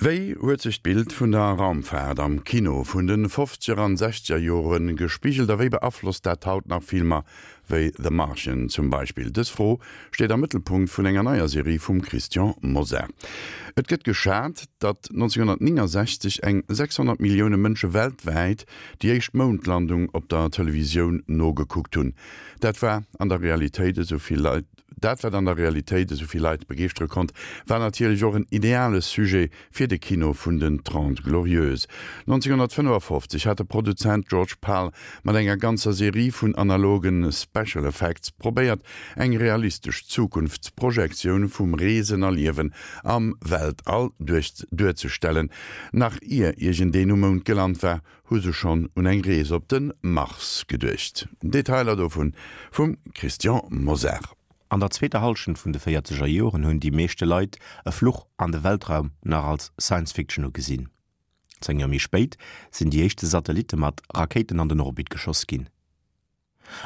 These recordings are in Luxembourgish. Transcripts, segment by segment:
Wéi huet sech d'Bild vun der Raumfaart am Kino vun de fofzeger an sechzeger Jore gespigelt a wéi beaflosst dat haut nach Filmer wéi The Martian zum Beispill? Dës Fro steet am Mëttelpunkt vun enger neier Serie vum Christian Mosar. Et gëtt geschat, datt 1969 eng 600 Millioune Mënsche weltwäit déi éischt Moundlandung op der Televisioun nogekuckt hunn. Dat war an der Realitéit esou vill Leit. Dat, wat an der Realitéit esou vill Leit begeeschtere konnt, war natierlech och en ideale Sujet fir de Kino vun den Trente Glorieuses. 1955 hat de Produzent George Pal mat enger ganzer Serie vun analoge Special Effects probéiert, eng realistesch Zukunftsprojektioun vum Reesen a Liewen am Weltall duerzestellen. Nach ier iergendeen um Mound gelant war, hu se schonn un eng Rees op de Mars geduecht. Detailer dovun vum Christian Mosar. An der zweeter Hallschent vun de véierzeger Joren hunn déi meeschte Leit e Fluch an de Weltraum nach als Science Fiction ugesinn. 10 Joer méi spéit sinn déi éischte Satellitte mat Rakéiten an den Orbit geschoss ginn.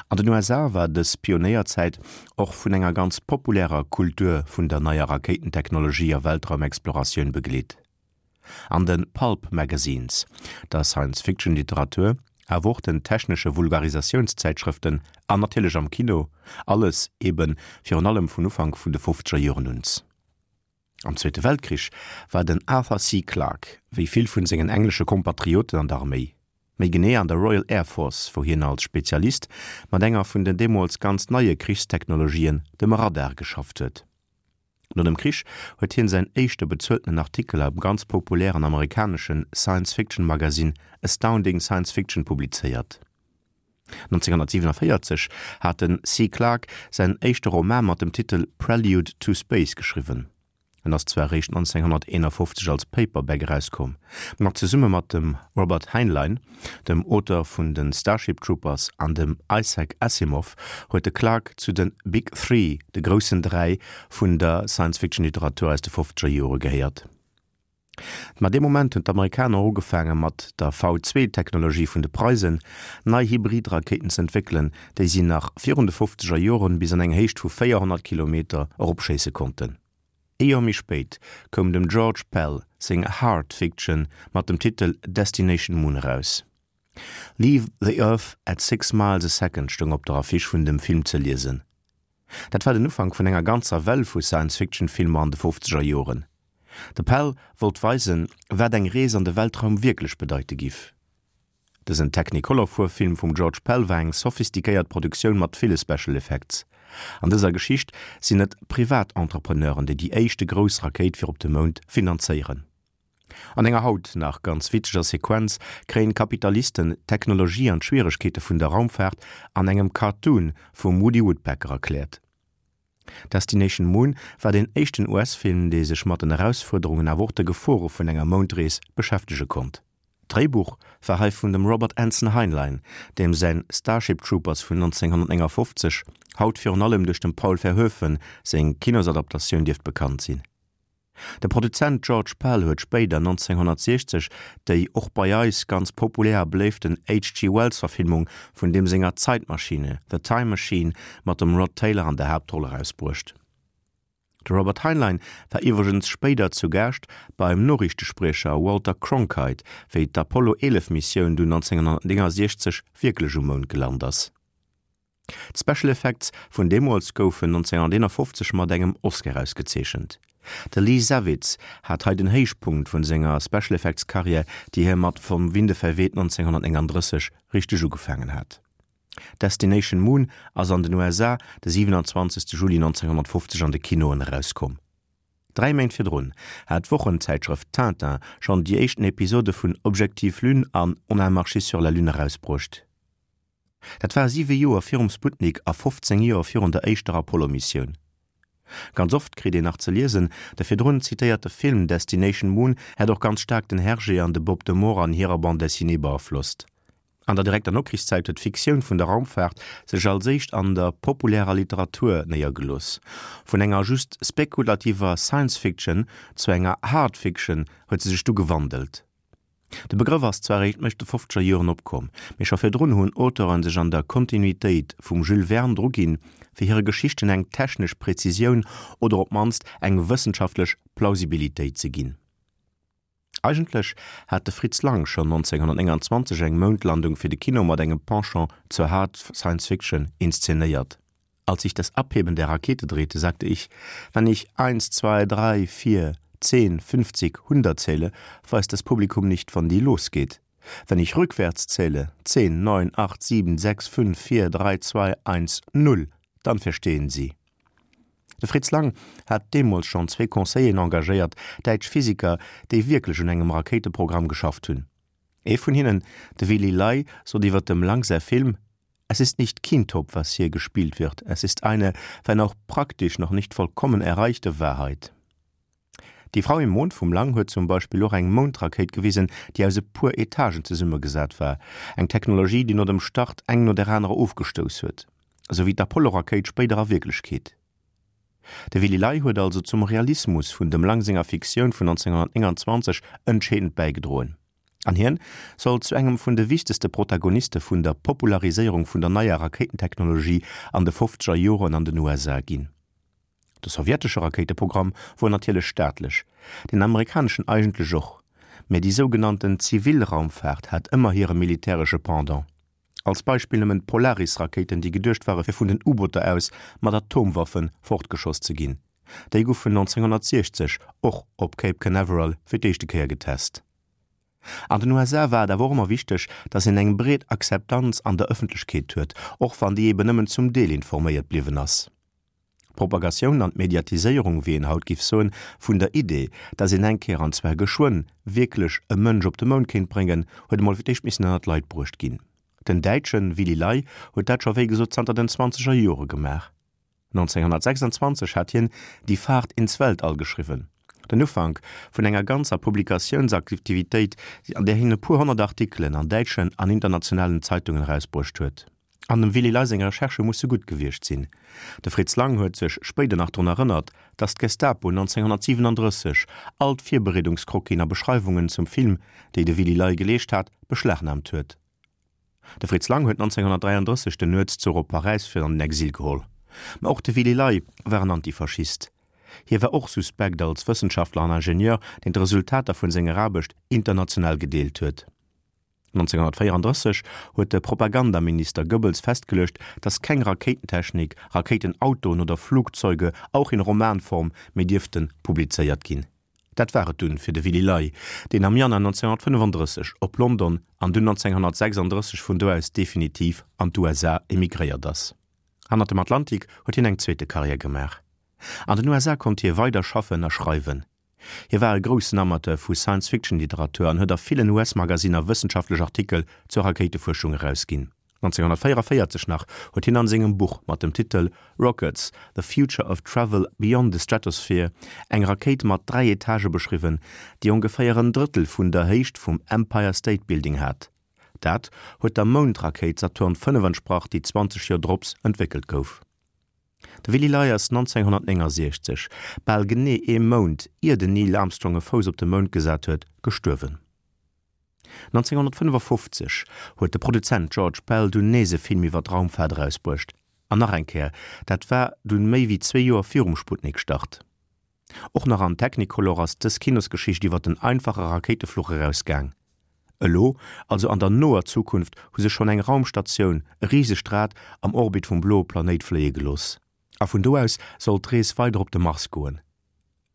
An den USA war dës Pionéierzäit och vun enger ganz populärer Kultur vun der neier Rakéitentechnologie a Weltraumexploratioun begleet. An de Pulp Magazines, der Science-Fiction-Literatur, awer och den technesche Vulgarisationszäitschrëften an natierlech am Kino, alles ebe virun allem vun Ufank vun de fofzeger Joren uns. Am Zweete Weltkrich war den Arthur C. Clarke, wéi vill vun sengen englesche Kompatrioten, an der Arméi. Méi genee an der Royal Air Force, wou hien als Spezialist mat enger vun den deemools ganz neie Krichstechnologien, dem Radar, geschafft huet. No dem Krich huet hien säin éischte bezueltenen Artikel am ganz populären amerikanesche Science-Fiction-Magasinn Astounding Science Fiction publizéiert. 1947 hat de C. Clarke säin éischte Roman mat dem Titel Prelude to Space geschriwwen. En ass zwar eréischt 1951 als Paperback erauskomm, ma zesumme mat dem Robert Heinlein, dem Auteur vun de Starship Troopers, an dem Isaac Asimov huet de Clarke zu de Big Three, de groussen 3, vun der Science-Fiction-Literatur aus de fofzeger Jore gehéiert. Ma dee Moment hunn d'Amerikaner ugefaange mat der V-Zwee-Technologie vun de Preisen nei Hybrid-Rakéiten z'entwéckelen, déi si nach virun de fofzeger Joren bis an eng Héicht vu 400 Kilometer eropschéisse konnten. Ee Joer méi spéit koum dem George Pell seng Hard Fiction mat dem Titel Destination Moon eraus. Leave the Earth at six miles a second stoung op der Affiche vun dem Film ze liesen. Dat war den Ufank vun enger ganzer Well vu Science-Fiction-Filmer an de fofzeger Joren. De Pell wollt weisen, wat eng Rees an de Weltraum wierklech bedeite giff. Dësen Technicolor-Fuerwfilm vum George Pell war eng sophistiquéiert Produktioun mat ville Special Effects. An dëser Geschicht sinn et Privatentrepreneuren, déi déi éischte grouss Rakéit fir op de Mound finanzéieren. An enger haut nach ganz witzeger Sequenz kréien d'Kapitalisten d'Technologie an d'Schwieregkeete vun der Raumfaart an engem Cartoon vum Woody Woodpecker erkläert. Destination Moon war deen éischten US-Film, dee sech mat den Erausfuerderungen awer och de Gefore vun enger Moundrees beschäftege konnt. D'Dréibuch war hei vun dem Robert Anson Heinlein, deem säin Starship Troopers vun 1959 haut virun allem duerch dem Paul Verhoeven seng Kinosadaptatioun dierft bekannt sinn. De Produzent George Pell huet spéider 1960 déi och bei eis ganz populär a beléiften HG. Wells-Verfilmung vun deem senger Zeitmaschine, The Time Machine, mat dem Rod Taylor an der Haaptroll erausbruecht. De Robert Heinlein war iwwregens spéider zu Gaascht beim Noriichtespriecher Walter Cronkite, wéi d'Apollo 11 Missioun dunn 1969 wierklech um Mound gelant ass. D'Special Effects vun deemools goufen 1951 mat engem Oscar ausgezeechent. De Lee Savitz hat hei den Héichpunkt vun senger Special Effects Karriär, déi hie mat Vom Winde verweht 1939 richteg ugefaangen hat. Destination Moon ass an den USA de 27 Juli 1950 an de Kinoen erauskomm. Dräi Méint virdrun hat d'Wochenzäitschrëft Tintin schonn déi éischten Episode vun Objectif Lune an On a marché sur la Lune erausbruecht. Dat war siwe Joer virum Sputnik a 15 Joer virun der éischter Apollo-Missioun. Ganz oft kritt een nach ze liesen, de virdrun zitéierte Film Destination Moon hätt och ganz staark den Hergé an de Bob de Moor an hirer Bande dessinée beaflosst. An der direkter Nokrichszäit huet d'Fiktioun vun der Raumfaart sech als éischt an der populärer Literatur néiergelooss. Vun enger just spekulativer Science-Fiction zu enger Hard Fiction huet se sech du gewandelt. De Begrëff ass zwar eréischt Mëcht de fofzeger Joren opkomm, mee scho virdrun hunn Auteuren sech an der Kontinuitéit vum Jules Verne druginn, fir hire Geschichten eng technesch Präzisioun oder op d'mannst eng wëssenschaftlech Plausibilitéit ze ginn. Eigentlech hat de Fritz Lang schonn 1929 eng Moundlandung fir de Kino mat engem Penchant zur Hard Science Fiction inszenéiert. Als sich das Abheben der Rakete drehte, sagte ich, wenn ich eins, zwei, drei, vier, zehn, fünfzig, hundert zähle, weiß das Publikum nicht, wann die losgeht. Wenn ich rückwärts zähle, zehn, neun, acht, sieben, sechs, fünf, vier, drei, zwei, eins, null, dann verstehen sie. De Fritz Lang hat deemools schonn zwee Conseilleren engagéiert, däitsch Physiker, déi wierklech un engem Rakéiteprogramm geschafft hunn. Ee vun hinnen, de Willy Ley, sot iwwer dem Lang säi Film, Es ist nicht Kintop, was hier gespielt wird, es ist eine, wenn auch praktisch noch nicht vollkommen erreichte Wahrheit. Die Frau im Mond vum Lang huet zum Beispill och eng Moundrakéit gewisen, déi aus e puer Etagen zesummegesat war, eng Technologie, déi no dem Start eng no der anerer ofgestouss huet, esou wéi d'Apollo-Rakéit spéider a Wierklechkeet. De Willy Ley huet also zum Realismus vun dem Lang senger Fiktioun vun 1929 entscheedend bäigedroen. An hien soll zu engem vun de wichtegste Protagoniste vun der Populariséierung vun der neier Rakéitentechnologie an de fofzeger Joren an den USA ginn. De sowjetesche Rakéiteprogramm wor natierlech staatlech, deen amerikaneschen eigentlech och, mä déi sougenannten zivil Raumfaart hat ëmmer hire militäresche Pendant. Als Beispill nëmmen d'Polaris-Rakéiten, déi geduecht ware fir vun den U-Booter aus mat Atomwaffe fortgeschoss ze ginn. Déi goufen 1960 och op Cape Canaveral fir d'éischte Kéier getest. An den USA war et awer och ëmmer wichteg, datt een eng breet Akzeptanz an der Ëffentlechkeet huet, och wann déi eben nëmmen zum Deel informéiert bliwwen ass. D'Propagatioun an d'Mediatiséierung, wéi een haut giff soen, vun der Idee, datt een eng Kéier, an zwar geschwënn, wierklech e Mënsch op de Mound kéint bréngen, huet emol fir d'éischt missen ënnert d'Leit bruecht ginn. Den Däitsche Willy Ley huet dat scho wéi gesot zanter den zwanzeger Jore gemaach. 1926 hat hien Die Fahrt ins Weltall geschriwwen, den Ufank vun enger ganzer Publikatiounsaktivitéit, an där hien e puer honnert Artikelen an däitschen an internationalen Zeitungen erausbruecht huet. An dem Willy Ley seng Recherchë musse gutt gewiescht sinn. De Fritz Lang huet sech spéider nach drun erënnert, datt d'Gestapo 1937 all d'Virbereedungscroquisen a Beschreiwungen zum Film, déi de Willy Ley geleescht hat, beschlagnaamt huet. De Fritz Lang huet 1933 den Nuetszuch op Paräis fir an den Exil geholl. Ma och de Willy Ley war en Antifaschist. Hie war och suspekt als Wëssenschaftler an Ingenieur, deen d'Resultater vun senger Aarbecht international gedeelt huet. 1934 huet de Propagandaminister Goebbels festgeluecht, datt keng Rakéitentechnik, Rakéitenautoen oder Flugzeuge, auch in Romanform, méi dierfte publizéiert ginn. Dat war et dunn fir de Willy Ley, deen am Januar 1935 op London an dunn 1936 vun do aus definitiv an d'USA emigréiert ass. Hannert dem Atlantik huet hien eng zweete Karriär gemaach. An den USA konnt hie weider schaffen a schreiwen. Hie war e groussen Amateur vu Science-Fiction-Literatur an huet a villen US-Magasinner wëssenschaftlech Artikel zur Rakéitefuerschung erausginn. 1944 nach huet hien an sengem Buch mat dem Titel Rockets, The Future of Travel Beyond the Stratosphere eng Rakéit mat 3 Etagë beschriwwen, déi ongeféier en Drëttel vun der Héicht vum Empire State Building hat. Dat huet der Moundrakéit Saturn V entsprach, déi 20 Joer drops entwéckelt gouf. De Willy Ley ass 1969, bal genee ee Mount ier den Neil Armstrong e Fouss op de Mound gesat huet, gestuerwen. 1955 huet de Produzent George Bell dunn nees e Film iwwer d'Raumfaart erausbruecht, an nach eng Kéier, dat war dunn méi wéi zwee Joer virum Sputnik-Start. Och nach an Technicolor ass dës Kinosgeschicht iwwer den einfache Rakéitefluch erausgaang. Elo, also an der noer Zukunft, hu se schonn eng Raumstatioun, e risegt Rad, am Orbit vum bloe Planéit fléie gelooss. A vun do aus soll d'Rees weider op de Mars goen.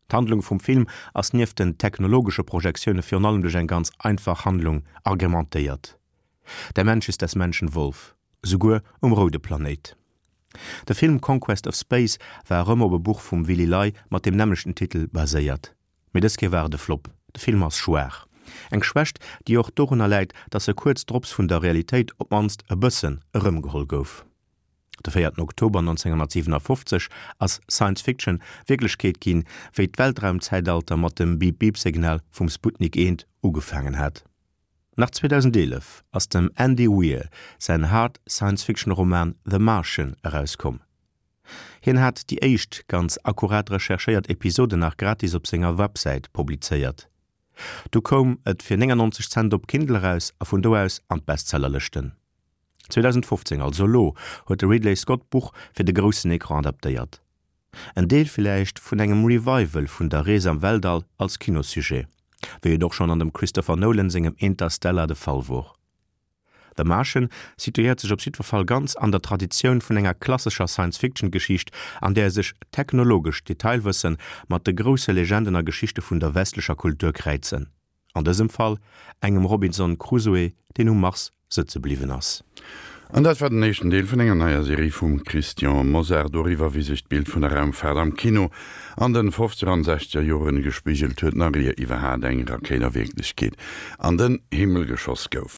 D'Handlung vum Film ass nieft den technologesche Projektioune virun allem duerch eng ganz einfach Handlung agrementéiert, Der Mensch ist des Menschen Wolf, souguer um roude Planéit. De Film Conquest of Space war erëm op e Buch vum Willy Ley mat deem nämmlechten Titel baséiert. Mee dës Kéier war et e Flop. De Film ass schwaach. Eng Schwächt, déi och dorunner läit, datt e kuerz drops vun der Realitéit op d'mannst e bëssen erëmgeholl gouf. De véierten Oktober 1957 ass Science Fiction Wierklechkeet ginn, wéi d'Weltraumzäitalter mat dem Beep-Beep-Signal vum Sputnik 1 ugefaangen hat. Nach 2011 ass dem Andy Weir säin Hard Science-Fiction-Roman The Martian erauskomm. Hien hat déi éischt ganz akkurat recherchéiert Episode nach gratis op senger Websäit publizéiert. Du koum et fir 99 Cent op Kindle eraus a vun do aus an d'Bestsellerlëschten. 2015, also elo, huet de Ridley Scott d'Buch fir de groussen Ecran adaptéiert. En Deel villäicht vun engem Revival vun der Rees am Weltall als Kinossujet. Wéi et och schonn an dem Christopher Nolan sengem Interstellar de Fall wor. The Martian situéiert sech op jiddwer Fall ganz an der Traditioun vun enger klassescher Science-Fiction-Geschicht, an där sech technologescht Detailwësse mat de grousse Legenden a Geschichte vun der westlecher Kultur kräizen. An dësem Fall engem Robinson Crusoe, deen um Mars sëtze bliwwen ass. An dat war den éischten Deel vun enger neier Serie vum Christian Mosar doriwwer, wéi sech d'Bild vun der Raumfaart am Kino an den fofzeger an sechzeger Joren gespigelt huet, nach ier iwwerhaat eng Rakéit a Wierklechkeet an den Himmel geschoss gouf.